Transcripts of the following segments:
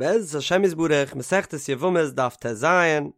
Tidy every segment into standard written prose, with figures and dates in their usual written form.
בעזרת השם יתברך, מסכת יבמות דף טז,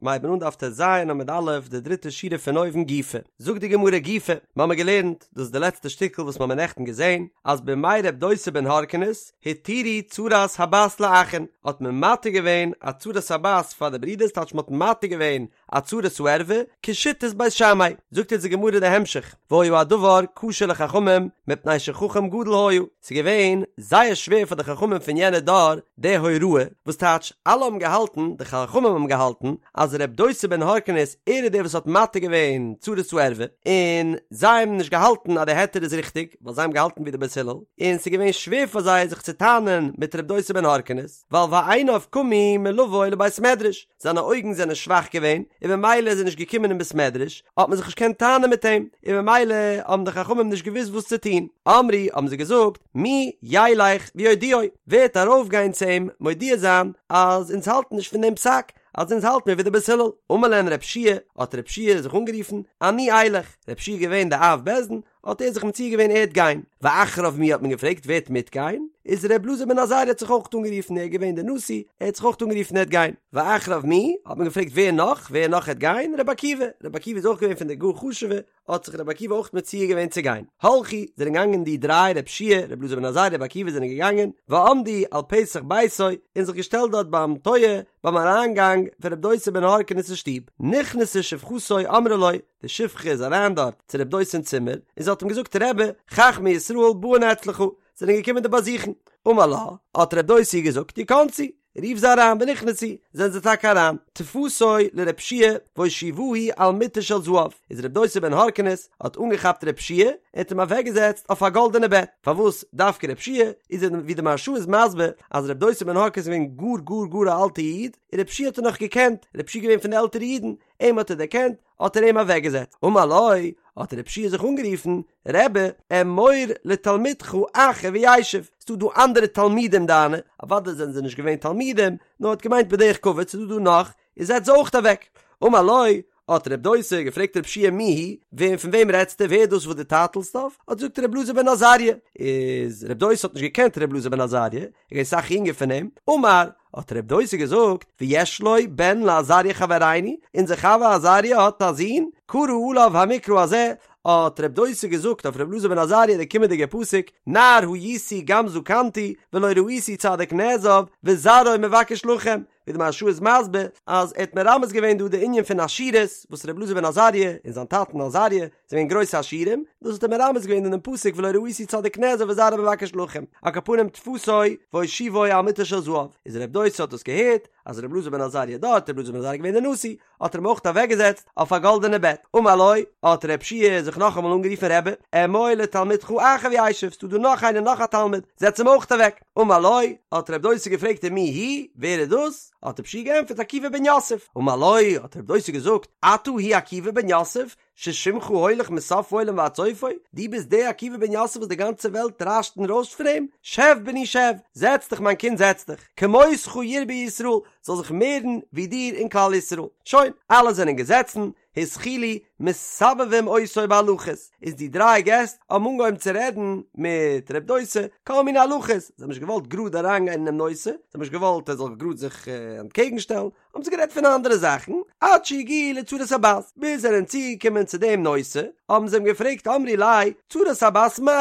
מיר הייבן אן דף טז עמוד א', די דריטע שורה פון אויבן גופא. זאגט די גמרא גופא, מ'האמיר געלערנט, דאס איז די לעצטע שטיקל וואס מ'האמיר נעכטן געזען, אז בימי רב דוסא בן הרכינס, התירו צרת הבת לאחין, האט מען מתיר געווען א צרת הבת פאר די ברידערס, טייטש מ'האט מתיר געווען א צרת הערווה, כשיטת בית שמאי. זאגט אונז די גמרא די המשך, והיה הדבר קשה לחכמים מפני שחכם גדול היה, ס'איז געווען זייער שווער פאר די חכמים פון יענע דור די הוראה, וואס טייטש אלע האבן געהאלטן, די חכמים האבן געהאלטן, אז ר' דוסא בן הרכינס ער איז דער וואס האט מתיר געווען צרת הערווה, און זיי האבן נישט געהאלטן אז די היתר איז ריכטיג, ווייל זיי האבן געהאלטן ווי די בית הלל, און ס'איז געווען שווער פאר זיי זיך צו טענה'ן מיט ר' דוסא בן הרכינס, ווייל ועיניו קמו מלבוא לבית מדרש, זיינע אויגן זענען שוואך געווען, און במילא איז ער נישט געקומען אין בית מדרש, האט מען זיך נישט געקענט טענה'ן מיט אים, און במילא האבן די חכמים נישט געוואוסט וואס צו טון. אמרו, האבן זיי געזאגט, מי ילך ויודיעו, ווער וועט ארויפגיין צו אים מודיע זיין אז אונז האלטן נישט פון דעם פסק, אז אונז האלט מיר ווי די בית הלל. אמר להן רב שיע, האט רב שיע זיך אנגערופן, אני אלך, רב שיע איז געווען די אב בית דין, האט ער זיך מציע געווען ער וועט גיין, ואחריו מי האט מען געפרעגט ווער וועט מיטגיין, איז ר' אלעזר בן עזריה האט זיך אויך אנגערופן ער איז געווען דער נשיא, ער האט זיך אויך אנגערופן ער וועט גיין, ואחריו מי האט מען געפרעגט ווער נאך, ווער נאך העט גיין, ר' עקיבא, ר' עקיבא איז אויך געווען פון די גאר חשובע, האט זיך ר' עקיבא אויך מציע געווען צו גיין, הלכו, זענען געגאנגען די דריי ר' שיע, ר' אלעזר בן עזריה ר' עקיבא זענען געגאנגען, ועמדו על פתח ביתו, און זיך געשטעלט דארט ביים טויער, ביים אריינגאנג פון ר' דוסא בן הרכינס שטוב, נכנסה שפחתו אמרה לו, די שפחה איז אריין דארט צו רב דוסא אין צימער, און זי האט אים געזאגט רבי, חכמי ישראל באין אצלך, זענען געקומען דיר באזוכן. אמר לה, האט רב דוסא געזאגט, יכנסו, רוף זיי אריין, ונכנסו, זענען זיי טאקע אריין, תפסו לרב שיע והושיבוהו על מיטה של זהב, איז רב דוסא בן הרכינס האט אנגעכאפט רב שיע און האט אים אוועקגעזעצט אויף א גאלדענע בעט, פארוואס דווקא רב שיע, איז ווי די מהרש"א איז מסביר אז רב דוסא בן הרכינס איז געווען גאר גאר גאר א אלטע איד, און רב שיע האט ער נאך געקענט, רב שיע איז געווען פון די עלטערע אידן, אים האט ער דערקענט, האט ער אים אוועקגעזעצט. אמר לו, האט רב שיע זיך אנגערופן, רבי, אמור לתלמידך אחר וישב, ס'דא דא אנדערע תלמידים דיינע, אוודאי זענען זיי נישט געווען תלמידים, נאר האט געמיינט בדרך כבוד, ס'דא דא נאך, און זעץ זיי אויך אוועק. אמר לו, האט רב דוסא געפרעגט רב שיע מי הוא, וועם פון וועם רעדסטו, ווער איז דאס וואס דו טייטלסט אויף, האט געזאגט רב אלעזר בן עזריה, איז רב דוסא האט נישט געקענט רב אלעזר בן עזריה, ער איז געווען אסאך יונגער פון אים, אמר, האט רב דוסא געזאגט, ויש לו בן לעזריה חברינו, אונזער חבר עזריה האט א זון, קרא עליו המקרא הזה, האט רב דוסא געזאגט אויף רב אלעזר בן עזריה די קומענדיגע פסוק, נער הייתי גם זקנתי, ולא ראיתי צדיק נעזב, וזרעו מבקש לחם, ווי די מהרש"א איז מסביר אז ער האט מרמז געווען דא די ענין פון עשירות וואס ר' אלעזר בן עזריה און זיין טאטן עזריה זענען געווען גרויסע עשירים, דאס האט ער מרמז געווען אינעם פסוק ולא ראיתי צדיק נעזב וזרעו מבקש לחם, על כל פנים תפסו והושיבו על מיטה של זהב, איז ר' דוסא האט דאס געהערט אז ר' אלעזר בן עזריה דארט, ר' אלעזר בן עזריה געווען דער נשיא, האט ער אים אויך אוועקגעזעצט אויף א גאלדענע בעט, אמר לו, האט רב שיע זיך נאכאמאל אנגערופן רבי, אמור לתלמידך אחר וישב, ס'דא דא נאך איינער נאך א תלמיד, זעץ אים אויך אוועק, אמר לו, האט רב דוסא געפרעגט ומי הוא, ווער איז דאס? האט רב שיע געענטפערט עקיבא בן יוסף, אמר לו, האט רב דוסא געזאגט, אתה הוא עקיבא בן יוסף, ששמך הולך מסוף העולם ועד סופו, דו ביסט דער עקיבא בן יוסף וואס די גאנצע וועלט רעש'ט און רוישט פון אים? שב בני שב, זעץ דיך מיין קינד זעץ דיך, כמותך ירבו ישראל, זאל זיך מערן ווי דיר אין כלל ישראל. שוין, אלע זענען געזעצן, התחילו מסבבים אותו בהלכות, איז די דריי געסט האבן אנגעהויבן צו רעדן מיט ר' דוסא כל מיני הלכות, זיי האבן נישט געוואלט גראד אריינגיין אינעם נושא, זיי האבן נישט געוואלט ער זאל גראד זיך אנטקעגן שטעלן, האבן זיי גערעדט פון אנדערע זאכן, עד שהגיעו לצרת הבת, ביז זיי זענען צוגעקומען צו דעם נושא, האבן זיי אים געפרעגט אמרו ליה, צרת הבת מהו?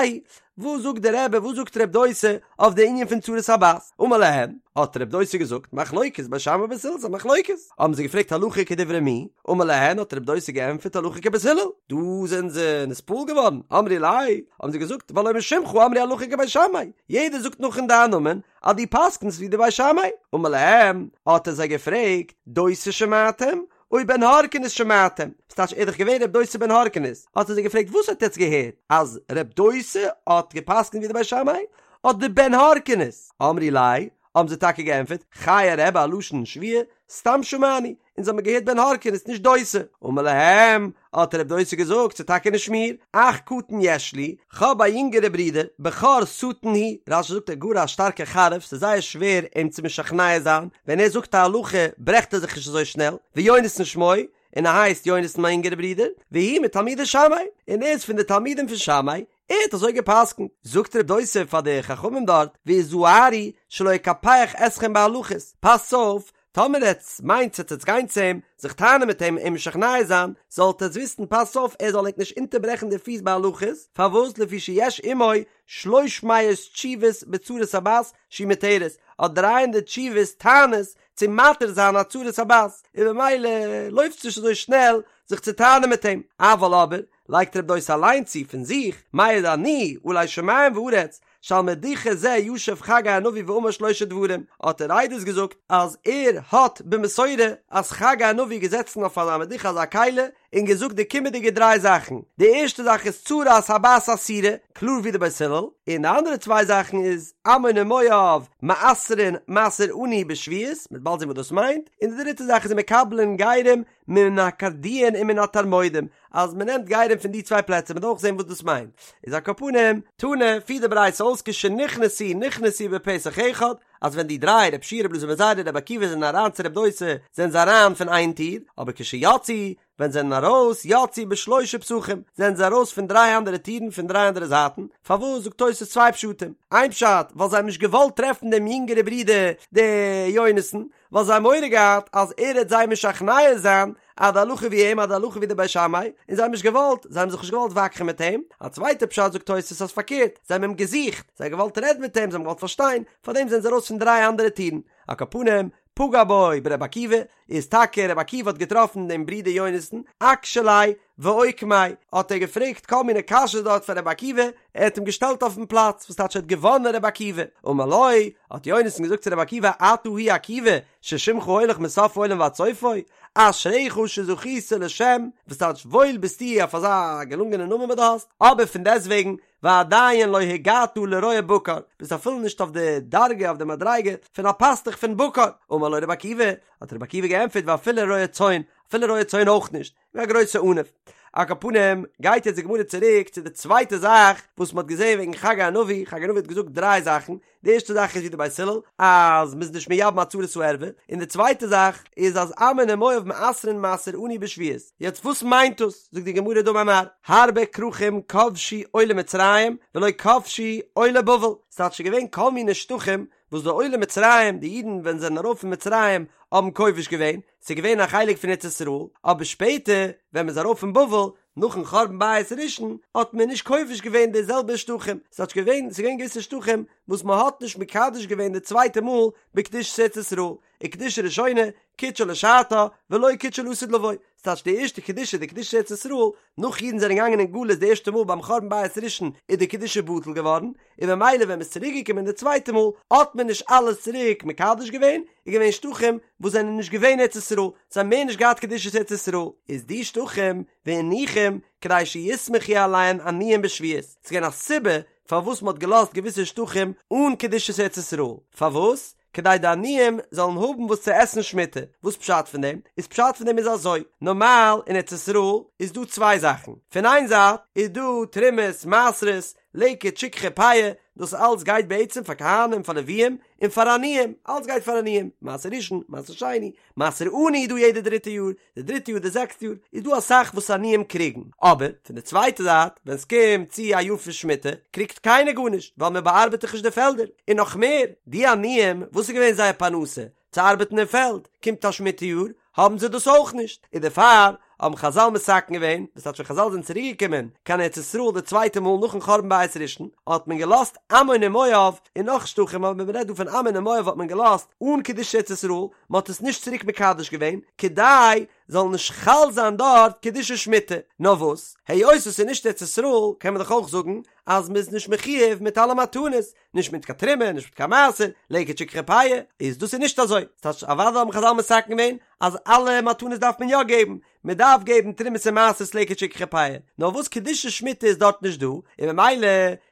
וואס זאגט דער רבי, וואס זאגט רב דוסא אויף די ענין פון צרת הבת? אמר להם, האט רב דוסא געזאגט, מחלוקת בית שמאי ובית הלל, ס'איז א מחלוקת. האבן זיי געפרעגט הלכה כדברי מי? אמר להן, האט רב דוסא געענטפערט הלכה כבית הלל. דא זענען זיי נתפעל געווארן, אמרו ליה, האבן זיי געזאגט, והלא משמך אמרו הלכה כבית שמאי, יעדער זאגט נאך אין דיין נאמען, אז דו פסק'נסט ווי די בית שמאי. אמר להם, האט ער זיי געפרעגט, דוסא שמעתם? או בן הרכינס שמעתם? ס'טייטש ער איז דאך געווען ר' דוסא בן הרכינס, האט ער זיי געפרעגט וואס האט עטץ געהערט? אז ר' דוסא האט געפסק'נט ווי די בית שמאי? אדער בן הרכינס? אמרו ליה, האבן זיי טאקע געענטפערט, חיי רבי א לשון שבועה, סתם שמענו, אונז האבן געהערט בן הרכינס נישט דוסא. אמר להם, האט רב דוסא געזאגט, ס'איז טאקע נישט מיר, אח קטן יש לי, כ'האב א יונגערע ברודער, בכור שטן הוא, רש"י זאגט ער גאר א שטארקע חריף, ס'איז זייער שווער אים צו משכנע זיין, ווען ער זאגט א הלכה ברעכט ער זיך נישט אזוי שנעל, ויונתן שמו, און ער הייסט יונתן מיין יונגערע ברודער, והוא מתלמידי שמאי, און ער איז פון די תלמידים פון שמאי, ער האט אזוי גע'פסק'נט. זאגט ר' דוסא פאר די חכמים דארט, והזהרו שלא יקפח אתכם בהלכות, פאסטס אויף, טאמער עטס מיינטס עטס עטס גיין צו אים, זיך טענה'ן מיט אים, אים משכנע זיין, זאלט עטס וויסן פאסטס אויף ער זאל ענק נישט אונטערברעכן די פיס בהלכות, פארוואס לפי שיש עמו שלוש מאות תשובות בצרת הבת שהיא מותרת, האט דריי הונדערט תשובות טענות צו מתיר זיין א צרת הבת, און במילא לויפטס נישט אזוי שנעל זיך צו טענה'ן מיט אים, אבל אבער, לייגט רב דוסא אליין צו פון זיך, מעיד אני עלי שמים וארץ, שעל מדוכה זה ישב חגי הנביא ואמר שלושה דברים, האט ער עדות געזאגט אז ער האט במסורה אז חגי הנביא איז געזעצן אויף אזא מדוכה אזא כלי און געזאגט די קומענדיגע דריי זאכן, די ערשטע זאך איז צרת הבת אסורה, קלאר ווי די בית הלל, און די אנדערע צוויי זאכן איז עמון ומואב מעשרין מעשר עני בשביעית, מ'וועט באלד זען וואס דאס מיינט, און די דריטע זאך איז ומקבלין גרים מן הקרדויין ומן התרמודים, אז מען נעמט גרים פון די צוויי פלעצער, מען וועט אויך זען וואס דאס מיינט, איז על כל פנים, תנא, פירט די ברייתא אויס כשנכנסו נכנסו בפתח אחד, אז ווען די דריי, רב שיע רב אלעזר בן עזריה רבי עקיבא זענען אריין צו רב דוסא, זענען זיי אריין פון איין טיר, אבער כשיצאו, ווען זיי זענען ארויס, יצאו בשלושה פתחים, זענען זיי ארויס פון דריי אנדערע טירן פון דריי אנדערע זייטן, פארוואס זאגט תוס' צוויי פשטים, איין פשט, ווייל זיי האבן נישט געוואלט טרעפן דעם יונגערע ברודער דער יונתן, ווייל זיי האבן מורא געהאט אז ער העט זיי משכנע זיין אז די הלכה ווי אים אז די הלכה ווי די בית שמאי, און זיי האבן נישט געוואלט, זיי האבן זיך נישט געוואלט וואקח'ן מיט אים, א צווייטע פשט זאגט תוס' אז פארקערט, זיי האבן אים געזוכט, זיי האבן געוואלט רעדן מיט אים, זיי האבן געוואלט פארשטיין, פארדעם זענען זיי ארויס פון דריי אנדערע טירן. על כל פנים, פגע בו ברבי עקיבא, איז טאקע רבי עקיבא האט געטראפן דעם ברודער יונתן, אקשי ליה ואוקמיה, האט ער געפרעגט כל מיני קשיות דארט פאר רבי עקיבא, ער האט אים געשטעלט אויפן פלאץ, וואס טייטש ער האט געוואנען רבי עקיבא, אמר לו, האט יונתן געזאגט צו רבי עקיבא, אתה הוא עקיבא, ששמך הולך מסוף העולם ועד סופו, אשריך שזכית לשם, וואס טייטש וואויל ביסטו אויף אזא געלונגענע נאמען וואס דו האסט, אבער פון דעסטוועגן, ועדיין לא הגעת לרועה בקר, ביסט אפילו נישט אויף די דרגה, אויף די מדריגה, פון א פאסטוך פון בקר, אמר לו רבי עקיבא, האט רבי עקיבא געענטפערט ואפילו רועה צאן, אפילו רועה צאן אויך נישט, געווען א גרויסע עניו. על כל פנים, גייט יעצט די גמרא צוריק צו די צווייטע זאך וואס מ'האט געזען וועגן חגי הנביא, חגי הנביא האט געזאגט דריי זאכן, די ערשטע זאך איז ווי די בית הלל, אז מ'איז נישט מייבם א צרת הערווה, און די צווייטע זאך איז אז עמון ומואב מעשרין מעשר עני בשביעית. יעצט וואס מיינט דאס? זאגט די גמרא דאמר מר, הרבה כרכים כבשו עולי מצרים ולא כבשו עולי בבל, ס'טייטש ס'איז געווען כל מיני שטחים וואס די עולי מצרים, די אידן ווען זיי זענען ארויף פון מצרים האבן כובש געווען, ס'איז געווען א חלק פון ארץ ישראל, אבער שפעטער ווען מ'איז ארויף פון בבל, נאכן חורבן בית ראשון, האט מען נישט כובש געווען די זעלבע שטחים, ס'טייטש געווען, ס'איז געווען געוויסע שטחים וואס מ'האט נישט מקדש געווען די צווייטע מאל בקדושת ארץ ישראל, וקדושה ראשונה קידשה לשעתה ולא קידשה לעתיד לבוא, ס'טייטש די ערשטע קדושה די קדושת ארץ ישראל, נאך אידן זענען געגאנגען אין גלות די ערשטע מאל ביים חורבן בית ראשון איז די קדושה בטל געווארן, און במילא ווען מ'איז צוריק געקומען די צווייטע מאל האט מען נישט אלעס צוריק מקדש געווען, איז געווען שטחים וואס זענען נישט געווען ארץ ישראל, זיי האבן מער נישט געהאט קדושת ארץ ישראל, איז די שטחים והניחום כדי שיסמכו עליהן עניים בשביעית, ס'איז געווען א סיבה פארוואס מ'האט געלאזט געוויסע שטחים אן קדושת ארץ ישראל, פארוואס? כדי די עניים זאלן האבן וואס צו עסן שמיטה, וואס פשט פון דעם? איז פשט פון דעם איז אזוי, נארמאל אין ארץ ישראל איז דא צוויי זאכן, פון איין זייט איז דא תרומות, מעשרות, לקט, שכחה, פאה, דאס אלץ גייט בעצם פאר כהנים, פאר לוויים, און פאר עניים, אלץ גייט פאר עניים, מעשר ראשון, מעשר שני, מעשר עני איז דא יעדע דריטע יאר, די דריטע יאר די זעקסטע יאר איז דא אסאך וואס עניים קריגן, אבער פון די צווייטע זייט ווען סקומט צו א יאר פון שמיטה קריגט קיינער גארנישט ווייל מען באארבעט דאך נישט די פעלדער, און נאך מער די עניים וואס איז געווען זייער פרנסה צו ארבעטן אין פעלד, קומט א שמיטה יאר האבן זיי דאס אויך נישט, און דערפאר האבן חזל מתקן געווען, דאס טייטש ווען חזל זענען צוריק געקומען קיין ארץ ישראל די צווייטע מאל נאכן חורבן בית ראשון האט מען געלאזט עמון און מואב און נאך שטחים אבער מען רעדט דא פון עמון און מואב האט מען געלאזט אן קדושת ארץ ישראל, מען האט עס נישט צוריק מקדש געווען, כדי זאל נישט חל זיין דארט קדושת שמיטה, נאר וואס, היות עס איז נישט ארץ ישראל, קען מען דאך אויך זאגן אז מען איז נישט מחויב מיט אלע מתנות, נישט מיט קיין תרומה, נישט מיט קיין מעשר, לקט שכחה פאה, איז דאס איז נישט אזוי, ס'טייטש אוודאי האבן חזל מתקן געווען אז אלע מתנות דארף מען יא געבן, מען דארף געבן תרומות און מעשרות לקט שכחה פאה, נאר וואס קדושת שמיטה איז דארט נישט דא, און ממילא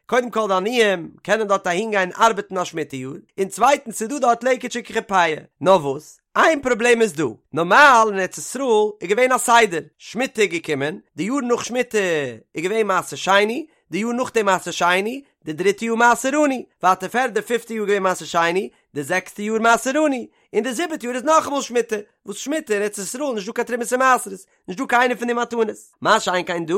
קודם כל די עניים קענען דארט אהין גיין ארבעטן א שמיטה יאר, און צווייטנס ס'איז דא דארט לקט שכחה פאה. נאר וואס, איין פראבלעם איז דא, נארמאל אין ארץ ישראל איז געווען א סדר, שמיטה איז געקומען, די יאר נאך שמיטה איז געווען מעשר שני, די יאר נאכדעם מעשר שני, די דריטע יאר מעשר עני, ווייטער פערדע פיפטע יאר געווען מעשר שני, די זעקסטע יאר מעשר עני, און די זיבעטע יאר איז נאכאמאל שמיטה, וואס שמיטה אין ארץ ישראל איז נישט דא קיין תרומות און מעשרות, נישט דא קיינע פון די מתנות. מה שאין כן דא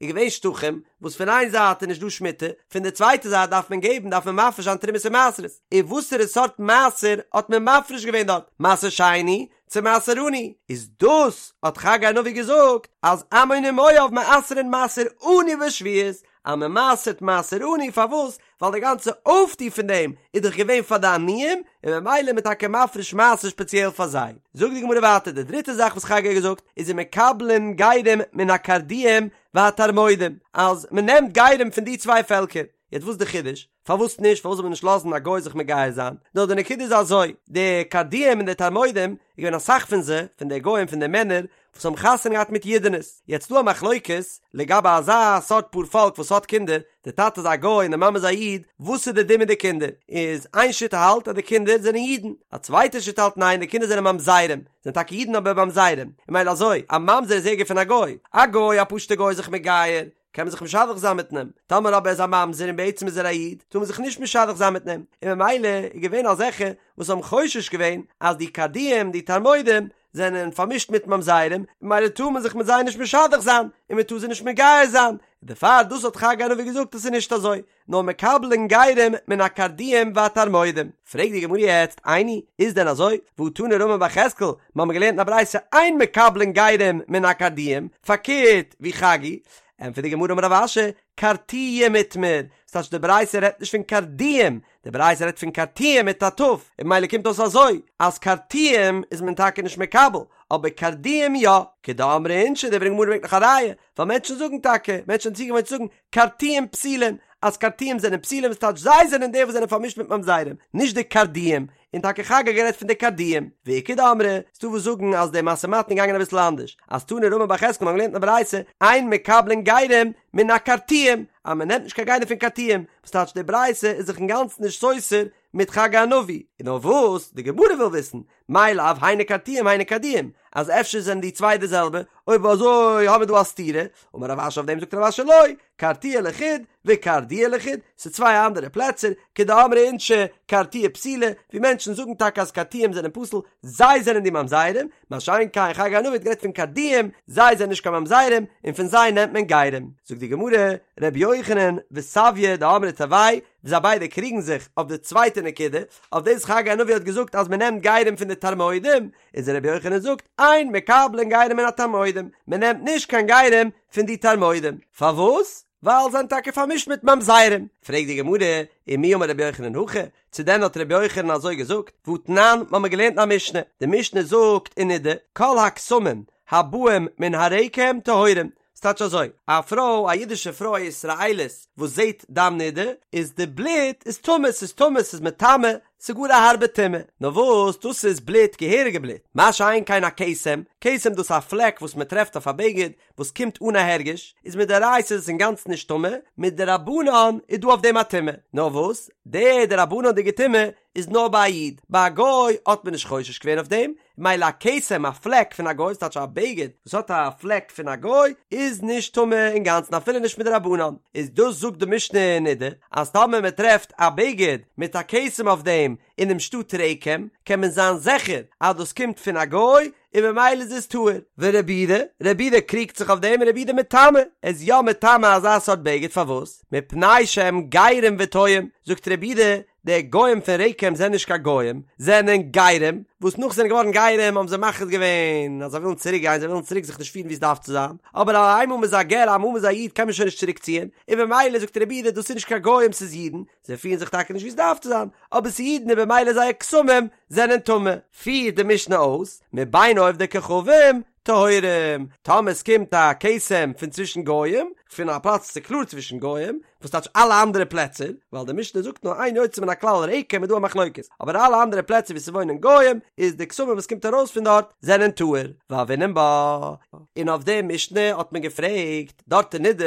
איז געווען שטחים וואס פון איין זייט איז נישט דא שמיטה, פון די צווייטע זייט דארף מען געבן דארף מען מפריש זיין תרומות און מעשרות, און וואסערע סארט מעשר האט מען מפריש געווען דארט, מעשר שני צו מעשר עני, איז דאס האט חגי הנביא געזאגט אז עמון ומואב מעשרין מעשר עני בשביעית, אז מען מעשר'ט מעשר עני, פארוואס? ווייל די גאנצע אויפטו פון דעם איז דאך געווען פאר די עניים, און ממילא איז מען טאקע מפריש מעשר שפעציעל פאר זיי. זאגט די גמרא ווייטער, די דריטע זאך וואס חגי האט געזאגט איז ומקבלין גרים מן הקרדויים והתרמודים, אז מען נעמט גרים פון די צוויי פעלקער. יעצט וואס איז די חידוש? פארוואס נישט? פארוואס זאל מען נישט לאזן א גוי זיך מגייר זיין? נאר די נקודה איז אזוי, די קרדויים און די תרמודים, איז געווען אסאך פון זיי, פון די גוים, פון די מענער, וואס האבן חתונה געהאט מיט אידענעס. יעצט דא א מחלוקת לגבי אזא סארט פאר פאלק וואס האט קינדער, די טאטע איז א גוי און די מאמע איז א איד, וואס איז די דין מיט די קינדער? איז איין שיטה האלט אז די קינדער זענען אידן, א צווייטע שיטה האלט ניין די קינדער זענען ממזרים, זענען טאקע אידן אבער ממזרים, און ממילא אזוי, א ממזר איז ערגער פון א גוי, א גוי א פשוטע גוי איז זיך מגייר, קען מען זיך משדך זיין מיט אים, טאמער אבער איז א ממזר און בעצם איז ער א איד, טאר מען זיך נישט משדך זיין מיט אים, און ממילא איז געווען אזעלכע וואס האבן חושש געווען אז די קרדויים, די תרמודים, זענען פארמישט מיט ממזרים, ממילא טאר מען זיך מיט זיי נישט משדך זיין, און מען טאר זיי נישט מגייר זיין, און דערפאר דאס האט חגי הנביא געזאגט אז ס'איז נישט אזוי, נאר מקבלין גרים מן הקרדויים והתרמודים. פרעגט די גמרא יעצט, איני, איז דען אזוי? והא תנא רמי בר יחזקאל, מיר האבן געלערנט אין א ברייתא אין מקבלין גרים מן הקרדויים, פארקערט ווי חגי, ענטפערט די גמרא אמר רב אשי, קרטויים איתמר, ס'טייטש די ברייתא רעדט נישט פון קרדויים, די ברייתא רעדט פון קרטויים מיט א ת', און ממילא קומט אויס אזוי, אז קרטויים איז מען טאקע נישט מקבל, אבער קרדויים יא, כדאמרי אינשי, די גמרא ברענגט נאך א ראיה, ווייל מענטשן זאגן טאקע, מענטשן זענען צוגעוואוינט צו זאגן, קרטויים פסולים, אז קרטויים זענען פסולים, ס'טייטש זיי זענען די וואס זענען פארמישט מיט ממזרים, נישט די קרדויים, און טאקע חגי האט גערעדט פון די קרדויים, ואיכא דאמרי, ס'דא וואס זאגן אז די משא ומתן איז געגאנגען אביסל אנדערש, אז תנא רמי בר יחזקאל מ'האט געלערנט אין א ברייתא, אין מקבלין גרים מן הקרטויים, אז מ'נעמט נישט קיין גרים פון קרטויים, וואס טייטש די ברייתא איז זיך אינגאנצן נישט סותר מיט חגי הנביא, און נאר וואס די גמרא וויל וויסן, מאי לאו היינו קרטויים היינו קרדויים, אז אפשר זענען די צוויי די זעלבע, אויב אזוי האבן מיר דא א סתירה, אמר רב אשי אויף דעם זאגט רב אשי לא, קרטויי לחוד וקרדויי לחוד, ס'איז צוויי אנדערע פלעצער, כדאמרי אינשי קרטויי פסולי, ווי מענטשן זאגן טאקע אז קרטויים זענען פסול, זיי זענען די ממזרים, מה שאין כן חגי הנביא האט גערעדט פון קרדויים, זיי זענען נישט קיין ממזרים, און פון זיי נעמט מען גרים. זאגט די גמרא, ר' יוחנן וסביא דאמרי תרוייהו, זיי ביידע קריגן זיך אויף די צווייטע נקודה, אויף דאס חגי הנביא האט געזאגט אז מען נעמט גרים פון די תרמודים, איז רבי יוחנן זאגט אין מקבלין גרים מן התרמודים, מען נעמט נישט קיין גרים פון די תרמודים, פארוואס? ווייל זיי זענען טאקע פארמישט מיט ממזרים. פרעגט די גמרא, ומי אמר רבי יוחנן הכי, צו דען האט רבי יוחנן אזוי געזאגט? והתנן, מ'האמיר געלערנט אין א משנה, די משנה זאגט אין נדה, כל הכתמים הבאים מן הרקם טהורים, ס'טייטש אזוי, א פרוי, א אידישע פרוי א ישראלית וואס זעט דם נידה, איז די בלוט איז טמא, ס'איז טמא, ס'איז מטמא, ס'איז גאר א הארבע טומאה. נאר וואס, דאס איז בלוט, געהעריגע בלוט. מה שאין כן א כתם, כתם דאס איז א פלעק וואס מען טרעפט אויף א בגד, וואס קומט אן א הרגש, איז מדאורייתא איז עס אינגאנצן נישט טמא, מדרבנן איז דא אויף דעם א טומאה. נאר וואס, די דרבנן'דיגע טומאה איז נאר ביי א איד, ביי א גוי האט מען נישט חושש געווען אויף דעם, מילא א כתם א פלעק פון א גוי, ס'טייטש א בגד וואס האט א פלעק פון א גוי, איז נישט טמא אינגאנצן אפילו נישט מדרבנן, איז דאס זאגט די משנה אין נדה, אז טאמער מען טרעפט א בגד מיט א כתם אויף דעם אינעם שטאט רקם, קען מען זיין זיכער אז דאס קומט פון א גוי, און ממילא איז עס טהור. ורבי יהודה, רבי יהודה קריגט זיך אויף דעם און רבי יהודה מטמא, ער איז יא מטמא אזא סארט בגד, פארוואס? מפני שהם גרים וטועים, זאגט רבי יהודה, די גוים פון רקם זענען נישט קיין גוים, זענען גרים, וואס נאך זענען געווארן גרים האבן זיי מחליט געווען אז זיי ווילן צוריק גיין, זיי ווילן צוריק זיך נישט פירן ווי עס דארף צו זיין, אבער איינמאל מ'איז א גר איינמאל מ'איז א איד קען מען שוין נישט צוריק ציען, און במילא זאגט רבי יהודה דאס איז נישט קיין גוים ס'איז אידן, זיי פירן זיך טאקע נישט ווי עס דארף צו זיין, אבער ס'איז אידן און במילא זייער כתמים זענען טמא. פירט די משנה אויס, מבין עובדי כוכבים טהורים, טאמער עס קומט א כתם פון צווישן גוים, פון א פלאץ וואס איז קלאר צווישן גוים, וואס טייטש אלע אנדערע פלעצער, ווייל די משנה זאגט נאר איין יוצא מן הכלל רקם איז דא א מחלוקת, אבער אלע אנדערע פלעצער וואו ס'וואוינען גוים, איז די כתמים וואס קומט ארויס פון דארט זענען טהור, והוינן בה. און אויף די משנה האט מען געפרעגט דארט אין נדה,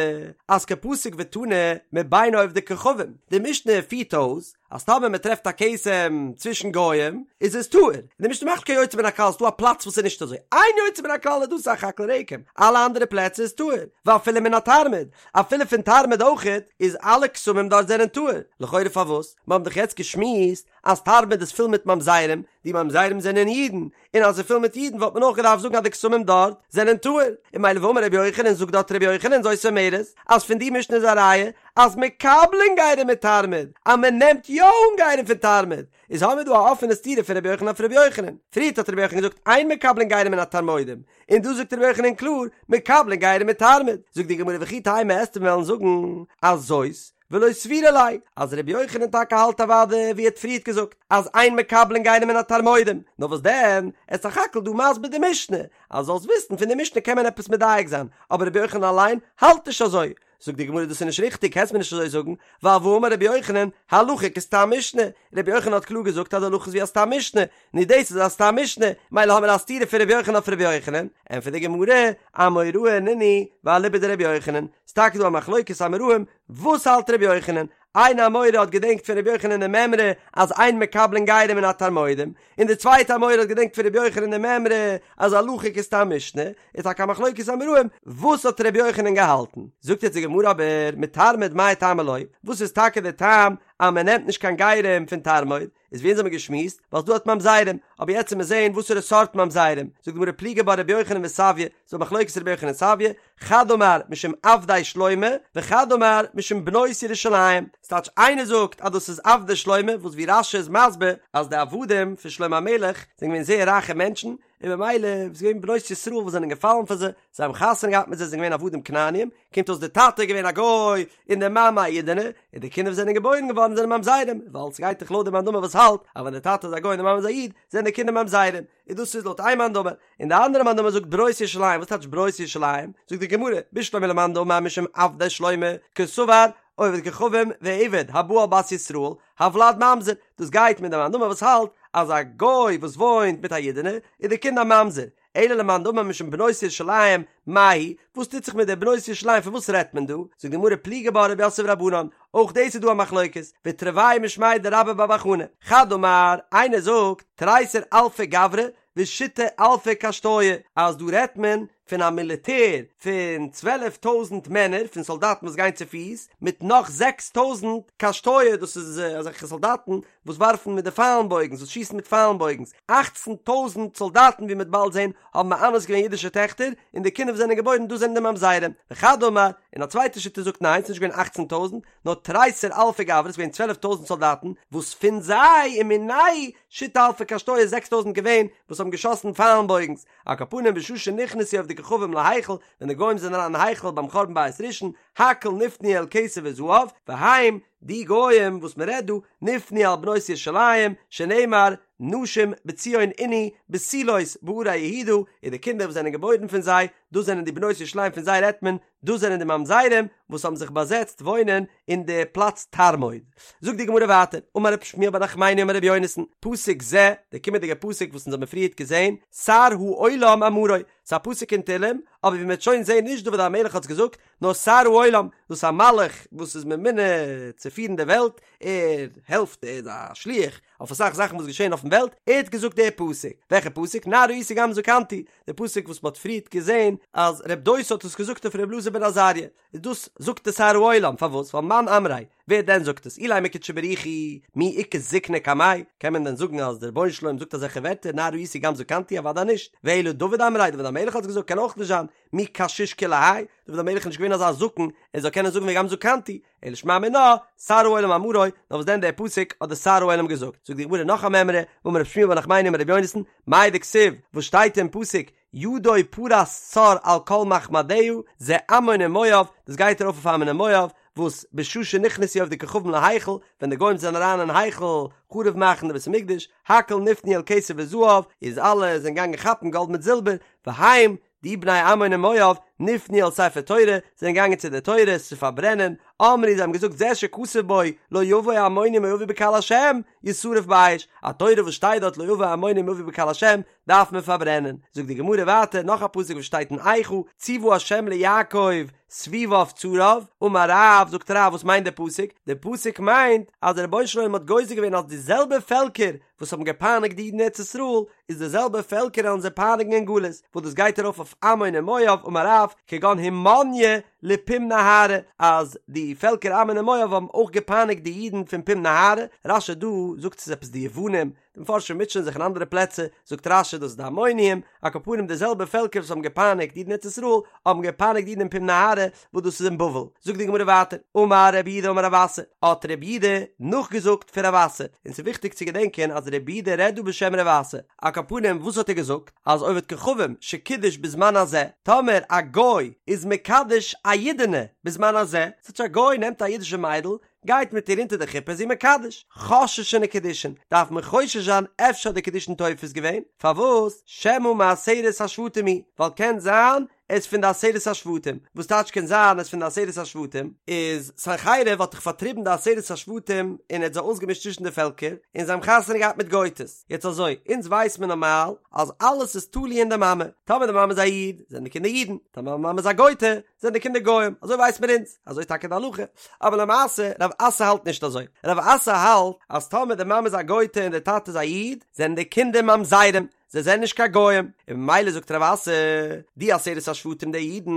אז קא פסיק ותני מבין עובדי כוכבים, די משנה פירט אויס אז טאמער מען טרעפט א כתם צווישן גוים איז עס טהור, און די משנה מאכט קיין יוצא מן הכלל, ס'דא א פלאץ וואס איז נישט אזוי, איין יוצא מן הכלל איז דא סך הכל רקם, אלע אנדערע פלעצער איז טהור, ואפילו מן התרמוד, אפילו פון תרמוד אויכעט, איז אלע כתמים דארט זענען טהור, לכאורה פארוואס? מיר האבן דאך יעצט געשמועסט. אז תרמוד איז פול מיט ממזרים, די ממזרים זענען אידן, און אז ס'איז פול מיט אידן וואלט מען אויך געדארפט זאגן אז די כתמים דארט זענען טהור, און ממילא ואמר רבי יוחנן זאגט דארט רבי יוחנן זאת אומרת אז פון די משנה איז א ראיה אז מקבלין גרים מתרמוד, אז מען נעמט יא אן גרים פון תרמוד, איז האמיר דא א אפענע סתירה פון רבי יוחנן אויף רבי יוחנן, פריערט האט רבי יוחנן געזאגט אין מקבלין גרים מן התרמודים, און דא זאגט רבי יוחנן קלאר מקבלין גרים מתרמוד, זאגט די גמרא וכי תימא וועסטו וועלן זאגן אז זאת ולא סבירא ליה, אז רבי יוחנן טאקע האלט אוודאי ווי ער האט פריערט געזאגט אז אין מקבלין גרים מן התרמודים, נאר וואס דען, ער איז סך הכל דא מסביר די משנה, אז זאלסט וויסן פון די משנה קען מען עפעס מדייק זיין, אבער רבי יוחנן אליין האלט נישט אזוי, זאגט די גמרא דאס איז נישט ריכטיג קענסט מיר נישט אזוי זאגן, ווייל והאמר רבי יוחנן, הלכה כסתם משנה, רבי יוחנן האט קלאר געזאגט אז די הלכה איז ווי א סתם משנה, נו דאס איז א סתם משנה, מילא האמיר א סתירה פון רבי יוחנן אויף רבי יוחנן, ענטפערט די גמרא, אמוראי נינהו ואליבא דרבי יוחנן, ס'טאקע דא א מחלוקת אמוראים, וואס האלט רבי יוחנן? איין אמורא האט געדענקט פון רבי יוחנן די מימרא אז אין מקבלין גרים מן התרמודים, און די צווייטע אמורא האט געדענקט פון רבי יוחנן די מימרא אז הלכה כסתם משנה, איז טאקע א מחלוקת אמוראים, וואס האט רבי יוחנן געהאלטן? זאגט יעצט די גמרא אבער, מתרמוד מאי טעמא לא, וואס איז טאקע די טעם אז מען נעמט נישט קיין גרים פון תרמוד? איז ווי אונז האבן געשמועסט, ווייל ס'דא דארט ממזרים, אבער יעצט וועט מען זעהן וואסערע סארט ממזרים, זאגט די גמרא פליגי בה רבי יוחנן וסביא, ס'דא א מחלוקת רבי יוחנן און סביא, חד אמר משום עבדי שלמה, וחד אמר משום בנות ירושלים, ס'טייטש איינער זאגט אז דאס איז עבדי שלמה, וואס ווי רש"י איז מסביר אז די עבדים פון שלמה המלך זענען געווען זייער רייכע מענטשן, און במילא איז געווען בנות ישראל וואס זענען געפאלן פאר זיי, זיי האבן חתונה געהאט מיט זיי זענען געווען עבדים כנעניים, קומט אויס די טאטע איז געווען א גוי און די מאמע א אידענע, און די קינדער וואס זענען געבוירן געווארן זענען ממזרים, ווייל ס'גייט דאך לויט די מאן דאמר וואס האלט אז ווען די טאטע איז א גוי און די מאמע איז א איד, זענען די קינדער ממזרים, און דאס איז לויט איין מאן דאמר, און די אנדערע מאן דאמר זאגט בנות ירושלים, וואס טייטש בנות ירושלים? זאגט די גמרא, בשלמא למאן דאמר משום עבדי שלמה, קסבר עובד כוכבים ועבד הבא על בת ישראל, הולד ממזר, דאס גייט מיט די מאן דאמר וואס האלט אז א גוי וואס וואוינט מיט א אידענע איז די קינד א ממזר, אלא למאן דאמר משום בנות ירושלים, מאי היא, וואס טוט זיך מיט די בנות ירושלים פון וואס רעדט מען דא? זאגט די גמרא פליגי בה רב יוסף ורבנן, אויך דאס איז דא א מחלוקת, ותרוייהו משמיה דרבה בר בר חנה, חד אמר, איינער זאגט, תריסר אלפי גברי ושיתא אלפי קשתויי, אז דא רעדט מען פון א מיליטער פון 12 טויזנט מענער פון סאלדאטן וואס גייען צופיס, מיט נאך זעקס טויזנט קשתויי, דאס איז אזעלכע סאלדאטן וואס ווארפן מיט די פיילן בויגנס, וואס שיסן מיט פיילן בויגנס, אכצן טויזנט סאלדאטן ווי מ'וועט באלד זען האבן מאנס געווען אידישע טעכטער, און די קינדער וואס זענען געבוירן דאס זענען די ממזרים, וחד אמר, און א צווייטע שיטה זאגט ניין ס'איז נישט געווען אכצן טויזנט, נאר תריסר אלפי גברי, ס'איז געווען צוועלף טויזנט סאלדאטן, וואס פון זיי ומינייהו שיתא אלפי קשתויי זעקס טויזנט געווען וואס האבן געשאסן פיילן בויגנס, על כל פנים בשעה שנכנסו עובדי כוכבים להיכל, ווען די גוים זענען אריין אין היכל ביים חורבן בית ראשון, הכל נפנו אל כסף וזהב, והם, די גוים וואס מען רעדט דא, נפנו אל בנות ירושלים, שנאמר, נשים בציון ענו, בתולות בערי יהודה, און די קינדער וואס זענען געבוירן פון זיי, דאס זענען די בנות ירושלים פון זיי רעדט מען, דאס זענען די ממזרים וואס האבן זיך באזעצט וואוינען אין די פלאץ תרמוד. זאגט די גמרא ווייטער, אמר רב שמואל בר נחמני אמר רבי יונתן, פסוק זה, די קומענדיגע פסוק וואס אונז האבן פריערט געזען, שר העולם אמרו, ס'איז א פסוק אין תהלים, אבער ווי מ'וועט שוין זען נישט דוד המלך האט עס געזאגט, נאר שר העולם, דאס איז א מלאך וואס איז ממונה צו פירן די וועלט, ער העלפט, ער איז א שליח אויף אסאך זאכן וואס געשען אויפן וועלט, ער האט געזאגט די פסוק, וועלכע פסוק? נער הייתי גם זקנתי, די פסוק וואס מ'האט פריערט געזען אז רב דוסא האט עס געזאגט אויף ר' אלעזר בן עזריה, איז דאס זאגט די שר העולם, פארוואס? ווייל מאן אמריה, ווער דען זאגט עס? אילימא קודשא בריך הוא, מי איכא זקנה קמיה, קען מען דען זאגן אז דער רבונו של עולם זאגט אזעלכע ווערטער נער הייתי גם זקנתי? אוודאי נישט, ואלא דוד אמריה, דוד המלך האט עס געזאגט, קען אויך נישט זיין, מי קשיש כולי האי, דוד המלך איז נישט געווען אזא זקן ער זאל קענען זאגן וגם זקנתי, אלא שמע מינה, שר העולם אמרו, נאר וואס דען דער פסוק האט דער שר העולם געזאגט, זאגט די גמרא נאך א מימרא, ואמר רב שמואל בר נחמני אמר רבי יונתן, מאי דכתיב, וואס שטייט אין פסוק, ידו פרס צר על כל מחמדיה, זה עמון ומואב, דאס גייט ארויף אויף עמון און מואב, וואס בשעה שנכנסו עובדי כוכבים להיכל, ווען די גוים זענען אריין אין היכל חרוב מאכן די בית המקדש, הכל נפנו אל כסף וזהב, איז אלע זענען געגאנגען כאפן גאלד מיט זילבער, והם, די בני עמון און מואב, נפנו אל ספר תורה, זענען געגאנגען צו די תורה עס צו פארברענען, אמרו זיי האבן געזאגט זה שכתוב בו לא יבוא עמוני ומואבי בקהל השם, ישרף באש, א תורה וואס שטייט דארט לא יבוא עמוני ומואבי בקהל השם, דארף מען פארברענען. זאגט די גמרא ווייטער נאך א פסוק וואס שטייט אין איכה, צוה השם ליעקב סביביו צריו, אמר רב, זאגט רב וואס מיינט די פסוק? די פסוק מיינט אז דער רבונו של עולם האט גוזר געווען אז די זעלבע פעלקער וואס האבן געפייניגט די אידן אין ארץ ישראל, איז די זעלבע פעלקער וועלן זיי פייניגן אין גלות, וואס דאס גייט ארויף אויף עמון און מואב, אמר רב, כגון הומניה. לפום נהרא, אז די פעלקער עמון און מואב האבן אויך געפייניגט די אידן פון פום נהרא, רש"י דא זאגט ס'איז עפעס די יוונים, די מפרשים מוטשען זיך אין אנדערע פלעצער, זאגט רש"י דאס איז די עמונים, על כל פנים די זעלבע פעלקער וואס האבן געפייניגט אידן אין ארץ ישראל, האבן געפייניגט אידן אין פום נהרא, וואס דאס איז אין בבל. זאגט די גמרא ווייטער, אמר רב יהודה אמר רב אסי, האט רב יהודה נאכגעזאגט פון רב אסי, און ס'איז וויכטיג צו געדענקען אז רב יהודה רעדט דא בשם רב אסי, על כל פנים וואס האט ער געזאגט? אז עובד כוכבים שקידש בזמן הזה, טאמער א גוי איז מקדש א אידענע בזמן הזה, ס'טייטש א גוי נעמט א אידישע מיידל, גייט מיט איר אונטער די חופה איז זי מקדש, חוששין לקידושין, דארף מען חושש זיין אפשר האט די קידושין תופס געווען, פארוואס? שמא מעשרת השבטים הוא, ווייל קען זיין ער איז פון די עשרת השבטים, וואס טייטש קען זיין ער איז פון די עשרת השבטים? איז סנחריב האט דאך פארטריבן די עשרת השבטים און ער האט זיי אויסגעמישט צווישן די פעלקער, און זיי האבן חתונה געהאט מיט גויטעס, יעצט אזוי, אונז ווייס מען נארמאל אז אלעס איז תלוי אין די מאמע, טאמער די מאמע איז א איד, זענען די קינדער אידן, טאמער די מאמע איז א גויטע, זענען די קינדער גוים, אזוי ווייסט מען אונז, אזוי איז טאקע די הלכה, אבער למעשה רב אסי האלט נישט אזוי, רב אסי האלט אז טאמער די מאמע איז א גויטע און די טאטע איז א איד, זענען די קינדער ממזרים, זיי זענען נישט קיין גוים, און ממילא זאגט רב אסי, די עשרת השבטים די אידן,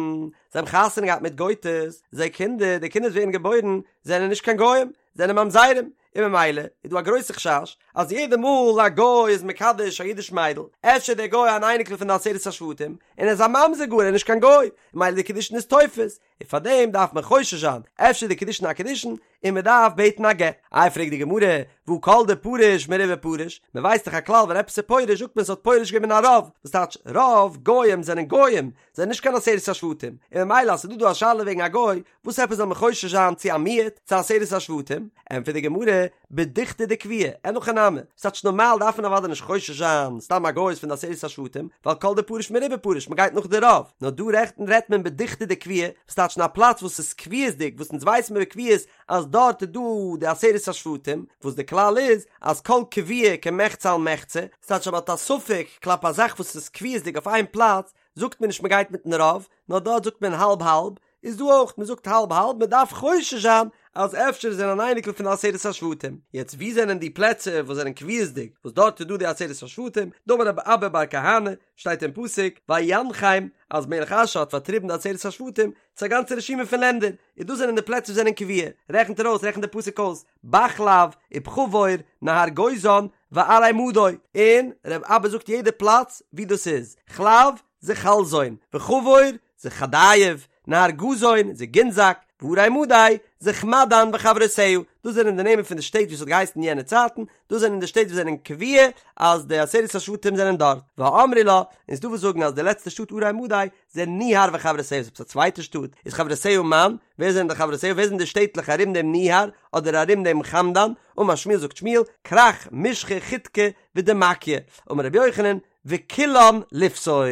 זיי האבן חתונה געהאט מיט גויטעס, זייער קינדער, די קינדער וואס ווערן געבוירן, זענען נישט קיין גוים, זענען ממזרים, און ממילא איז דא א גרויסע חשש אז יעדע מאל א גוי איז מקדש א אידיש מיידל, אפשר איז דער גוי אן אייניקל פון די עשרת השבטים, און ער איז א ממזר גאר, ער איז נישט קיין גוי, און ממילא די קידושין איז תופס, און פאר דעם דארף מען חושש זיין, אפשר איז די קידושין א קידושין, און מען דארף בעטן א גט. איי פרעגט די גמרא, והא כל דפריש מרובא פריש, מען ווייסט דאך א כלל ווען עפעס איז פורש זאגט מען ס'האט פורש געווען מן הרוב, וואס טייטש רוב גוים זענען גוים, זענען נישט קיין עשרת השבטים, און ממילא אז ס'איז דא דא א שאלה וועגן א גוי, וואס עפעס זאל מען חושש זיין צו א מיעוט, צו עשרת השבטים? ענטפערט די גמרא, בדוכתא דקביעי, אין הכי נמי, ס'טייטש נארמאל דארף מען אוודאי נישט חושש זיין סתם א גוי איז פון די עשרת השבטים, ווייל כל דפריש מרובא פריש, מ'גייט נאך די רוב, נאר דא רעדט מען בדוכתא דקביעי, וואס טייטש אין א פלאץ וואס איז קביעות'דיג, וואס אונז ווייסן מיר בקביעות אז דארט איז דא די עשרת השבטים, וואס די כלל איז אז כל קבוע כמחצה על מחצה, ס'טייטש אז מ'האט א ספק כלפי א זאך וואס איז קביעות'דיג אויף איין פלאץ, זאגט מען נישט מ'גייט מיטן רוב, נאר דארט זאגט מען האלב האלב, איז דא אויך, מען זאגט האלב האלב, מען דארף חושש זיין אז אפשר איז ער אן אייניקל פון די עשרת השבטים. יעצט וואו זענען די פלעצער וואס זענען קביעות'דיג וואס דארט איז דא די עשרת השבטים, דאמר רב אבא בר כהנא, שטייט אין פסוק, וינחם, אז מלך אשור האט פארטריבן די עשרת השבטים, צו א גאנצע רשימה פון לענדער, און דאס זענען די פלעצער וואס זענען קבוע, רעכנט ער אויס, רעכנט די פסוק אויס, בחלב, ובחבור, נהר גוזן, וערי מדי, און רב אבא זאגט יעדע פלאץ וואו דאס איז, חלב, זה חלזון, וחבור, זה חדייב, נהר גזון, זה גינזק, וערי מדי, זה חמדן וחברותיה, דאס זענען די נעמען פון די שטעט ווי עס האט געהייסן אין יענע צייטן, דאס זענען די שטעט וואס זענען קבוע אז די עשרת השבטים זענען דארט, ואמרי לה, און ס'דא וואס זאגן אז די לעצטע שטאט ערי מדי, זה ניהר וחברותיה, איז עפעס א צווייטע שטאט, איז חברותיה מאן, ווער זענען די חברותיה, ווער זענען די שטעטלעך ארום דעם ניהר, אדער ארום דעם חמדן, אמר שמואל זאגט שמואל, כרך, משחא, חידקא, ודמקיא, אמר רבי יוחנן, וכולן לפסול.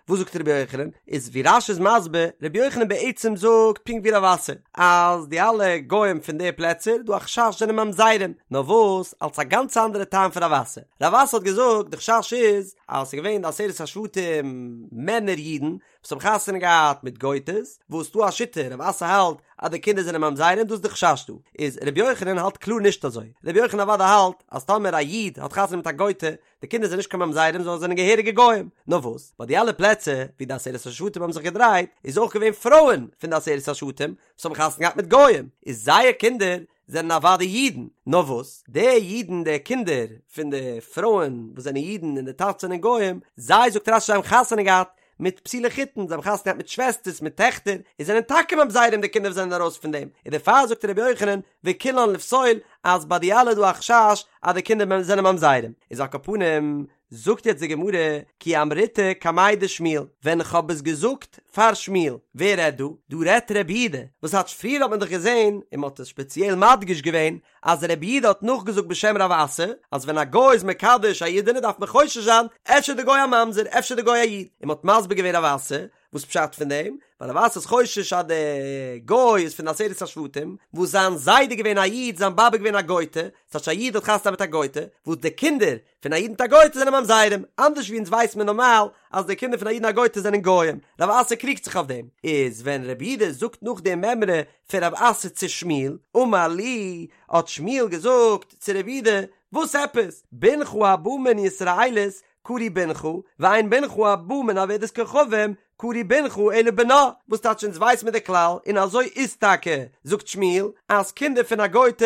וואס זאגט רבי יוחנן? איז ווי רש"י איז מסביר, רבי יוחנן בעצם זאגט פונקט ווי רב אסי, אז די אלע גוים פון די פלעצער, דא א חשש זענען ממזרים, נאר וואס, אלס א גאנץ אנדערע טעם פון רב אסי. רב אסי האט געזאגט, די חשש איז, אז ס'איז געווען די עשרת השבטים מענער אידן, וואס האבן חתונה געהאט מיט גויטעס, וואס ס'דא א שיטה, רב אסי האלט אז די קינדער זענען ממזרים, דאס איז די חשש דא. איז רבי יוחנן האלט קלאר נישט אזוי. רבי יוחנן אוודאי האלט, אז טאמער א איד האט חתונה מיט א גויטע, די קינדער זענען נישט קיין ממזרים זיי זענען געהעריגע גוים. נאר וואס, ביי די אלע פלעצער ווי די עשרת השבטים האבן זיך געדרייט, איז אויך געווען פרויען פון די עשרת השבטים וואס האבן חתונה געהאט מיט גוים, איז זייער קינדער זענען אוודאי אידן. נאר וואס, די אידן, די קינדער פון די פרויען וואס זענען אידן און די טאטעס זענען גוים, זיי, זאגט רש"י, האבן חתונה געהאט מיט פסולי חיתון, זיי האבן חתונה געהאט מיט שוועסטערס, מיט טעכטער, און זענען טאקע ממזרים די קינדער וואס זענען ארויס פון דעם, און דערפאר זאגט רבי יוחנן, וכולן לפסול, אז ביי די אלע איז דא א חשש אז די קינדער זענען ממזרים. איז על כל פנים, זאגט יעצט די גמרא, כי אמריתה קמיה דשמואל, ווען איך האב עס געזאגט פאר שמואל, ווער רעדט דא? דא רעדט רבי יהודה, וואס טייטש פריער האט מען דאך געזען, און מען האט עס שפעציעל מדגיש געווען, אז רבי יהודה האט נאכגעזאגט בשם רב אסי, אז ווען א גוי איז מקדש א אידענע דארף מען חושש זיין, אפשר די גוי א ממזר, אפשר די גוי א איד, און מען האט מסביר געווען רב אסי, וואס פשט פון דעם? ווייל רב אסי איז חושש אז די גוי איז פון די עשרת השבטים, וואס זיין זיידע איז געווען א איד, זיין באבע איז געווען א גויטע, ס'טייטש א איד האט חתונה מיט א גויטע, וואס די קינדער פון א איד מיט א גויטע זענען ממזרים, אנדערש ווי אונז ווייסט מען נארמאל אז די קינדער פון א איד און א גויטע זענען גוים, רב אסי קריגט זיך אויף דעם, איז ווען רבי יהודה זאגט נאך די מימרא פון רב אסי צו שמואל, אמר ליה, האט שמואל געזאגט צו רבי יהודה, וואס עפעס, בנך הבא מן ישראלית קרוי בנך, ואין בנך הבא מן עובדת כוכבים. קרוי בנך אלא בנה, וואס טייטש אונז ווייס מיר די כלל, און אזוי איז טאקע, זאגט שמואל, אז קינדער פון א גוי'טע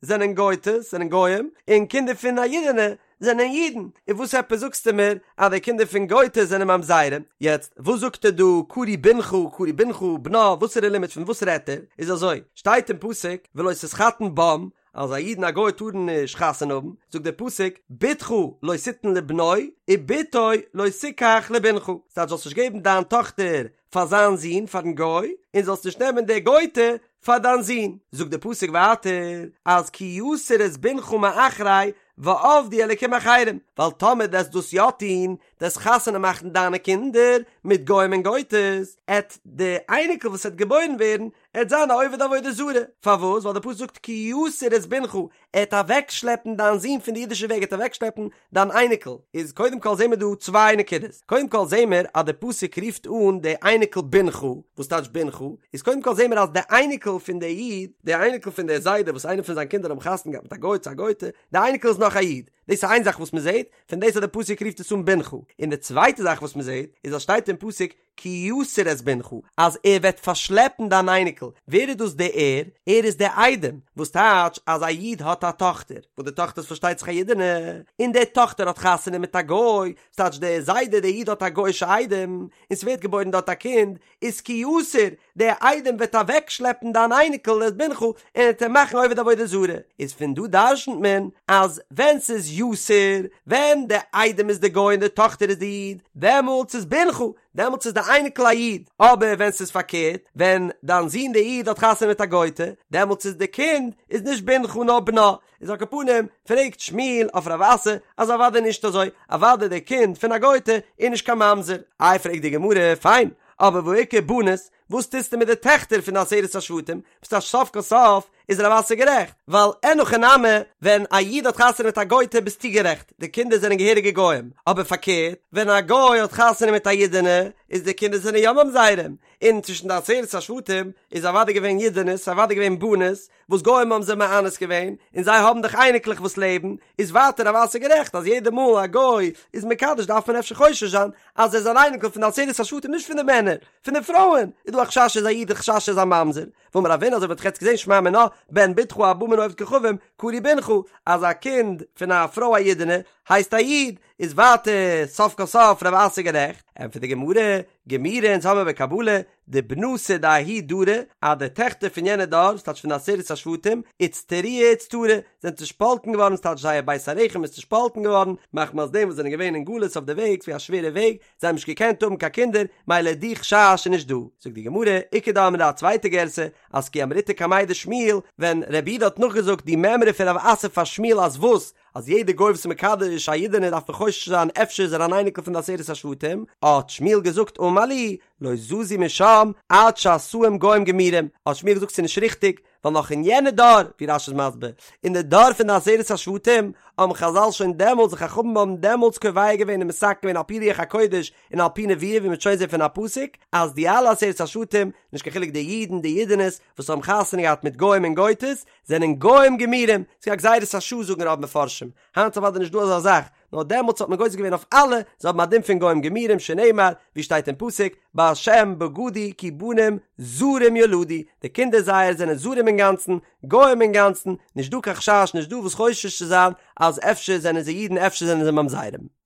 זענען גוי'טעס, זענען גוים, און קינדער פון א אידענע זענען אידן, און וואס עפעס זאגסטו מיר אז די קינדער פון גוי'טעס זענען ממזרים? יעצט, וואס זאגט ער דא קרוי בנך, קרוי בנך, בנה, וואסערע לימוד פון וואס רעדט ער? איז אזוי, שטייט אין פסוק ולא תתחתן בם, אז א איד און א גוי טארן נישט חתונה האבן, זאגט דער פסוק, בתך לא תתן לבנו, ובתו לא תקח לבנך, ס'טייטש זאלסט נישט געבן דיין טאכטער פאר זיין זון, פארן גוי, און זאלסט נישט נעמען די גוי'טע פאר דיין זון. זאגט דער פסוק ווייטער, אז כי יסיר את בנך מאחרי ועבדו אלקים אחרים, ווייל טאמער דו עסט דאס יא טון, דו עסט חתונה מאכן דיינע קינדער מיט גוים און גוי'טעס, עט די אייניקל וואס עט געבוירן ווערן, עט זיין א עובד עבודה זרה, פארוואס? ווייל די פסוק זאגט כי יסיר את בנך, עט אוועקשלעפן דיין זון פון די אידישע וועג, עט אוועקשלעפן דיין אייניקל, איז קודם כל זעהן מיר דא צוויי נקודות, קודם כל זעהן מיר אז די פסוק רופט אן די אייניקל בנך, וואס טייטש בנך? איז קודם כל זעהן מיר אז די אייניקל פון די איד, די אייניקל פון די זיידע וואס איינער פון זיין קינדער האבן חתונה געהאט מיט א גוי צו א גוי'טע, די אייניקל איז נאך א איד, דאס איז איין זאך וואס מען זעהט, פון דאס אז די פסוק רופט עס אן בנך, און די צווייטע זאך וואס מען זעהט, איז אז שטייט אין פסוק כי יסיר את בנך, אז ער וועט פארשלעפן דיין אייניקל, ווער איז דאס דער ער? ער איז דער איידעם, וואס טייטש אז א איד האט א טאכטער, וואס די טאכטער איז פארשטייט זיך א אידענע, און די טאכטער האט חתונה מיט א גוי, ס'טייטש דער זיידע דער איד האט א גוי'אישע איידעם, און ס'ווערט געבוירן דארט א קינד, איז כי יסיר, דער איידעם וועט אוועקשלעפן דיין אייניקל את בנך, און ער וועט אים מאכן עובד עבודה זרה, איז פון דא דרשנ'ט מען אז ווען ס'איז יסיר, ווען דער איידעם איז די גוי און די טאכטער איז די איד, דעמאלטס איז בנך, דעמאלטס איז די אייניקל א איד, אבער ווען ס'איז פארקערט, ווען דיין זון די איד האט חתונה מיט א גוי'טע, דעמאלטס איז די קינד איז נישט בנך נאר בנה, איז על כל פנים, פרעגט שמואל אויף רב אסי אז אוודאי נישט אזוי, אוודאי די קינד פון א גוי'טע איז נישט קיין ממזר. איי פרעגט די גמרא, פיין, אבער והא איכא בנות, וואס טוסטו מיט די טעכטער פון די עשרת השבטים, וואס טייטש סוף כל סוף איז רב אסי גערעכט, ווייל אין הכי נמי, ווען א איד האט חתונה מיט א גוי'טע ביסטו גערעכט, די קינדער זענען געהעריגע גוים, אבער פארקערט, ווען א גוי האט חתונה מיט א אידענע, איז די קינדער זענען יא ממזרים, און צווישן די עשרת השבטים איז אוודאי געווען אידענעס, אוודאי געווען בנות, וואס גוים האבן זיי מאנס געווען, און זיי האבן דאך אייניקלעך וואס לעבן, איז ווייטער רב אסי גערעכט אז יעדע מאל א גוי איז מקדש דארף מען אפשר חושש זיין אז ער איז אן אייניקל פון די עשרת השבטים נישט פון די מענער, פון די פרויען איז דא א חשש ער איז א איד א חשש ער איז א ממזר, ואמר רבינא אזוי ווי מ'האט יעצט געזען שמע מינה בן בתך הבא מן העובד כוכבים קרוי בנך אז א קינד פון א פרוי א אידענע הייסט א איד, איז ווייטער סוף כל סוף רב אסי גערעכט, ענטפערט די גמרא, גמירי אונז האמיר בקבלה דבנתא דההוא דרא, אז די טעכטער פון יענע דור, ס'טייטש פון די עשרת השבטים, איצטרויי איצטרי, זענען צושפאלטן געווארן, ס'טייטש זייער בית הרחם איז צושפאלטן געווארן, מחמת דעם וואס זענען געווען אין גלות אויף די וועג, ס'ווי א שווערע וועג, זיי האבן נישט געקענט האבן קיין קינדער, מילא די חשש איז נישט דא. זאגט די גמרא, איכא דאמרי א צווייטע גירסא, אז כי אמריתה קמיה דשמואל, ווען רב יהודה האט נאכגעזאגט די מימרא פון רב אסי פאר שמואל אז וואס? אז יעדע גוי וואס איז מקדש א אידענע דארף מען חושש זיין אפשר איז ער אן אייניקל פון די עשרת השבטים, האט שמואל געזאגט אמר לי, לא זזו משם עד שעשאום גוים גמורים, האט שמואל געזאגט ס'איז נישט ריכטיג, ווייל נאך אין יענע דור, ווי רש"י איז מסביר, אין די דור פון די עשרת השבטים, האבן חז"ל שוין דעמאלטס, די חכמים האבן דעמאלטס קובע געווען און מתקן געווען על פי רוח הקודש און על פי נבואה ווי מ'וועט שוין זען פון א פסוק, אז די אלע עשרת השבטים, נישט קיין חילוק די אידן די אידענעס, וואס האבן חתונה געהאט מיט גוים און גויטעס, זענען גוים גמורים, ס'איז א גזירת השעה זאגן רוב מפרשים, היינט איז אוודאי נישט דא אזא זאך, נאר דעמאלטס האט מען גוזר געווען אויף אלע, זיי האבן א דין פון גוים גמורים שנאמר, ווי שטייט אין פסוק, בהשם בגדו כי בנים זרים ילדו, די קינדער זייער זענען זרים אינגאנצן, גוים אינגאנצן, נישט דא קיין חשש, נישט דא וואס חושש צו זיין אז אפשר זענען זיי אידן אפשר זענען זיי ממזרים.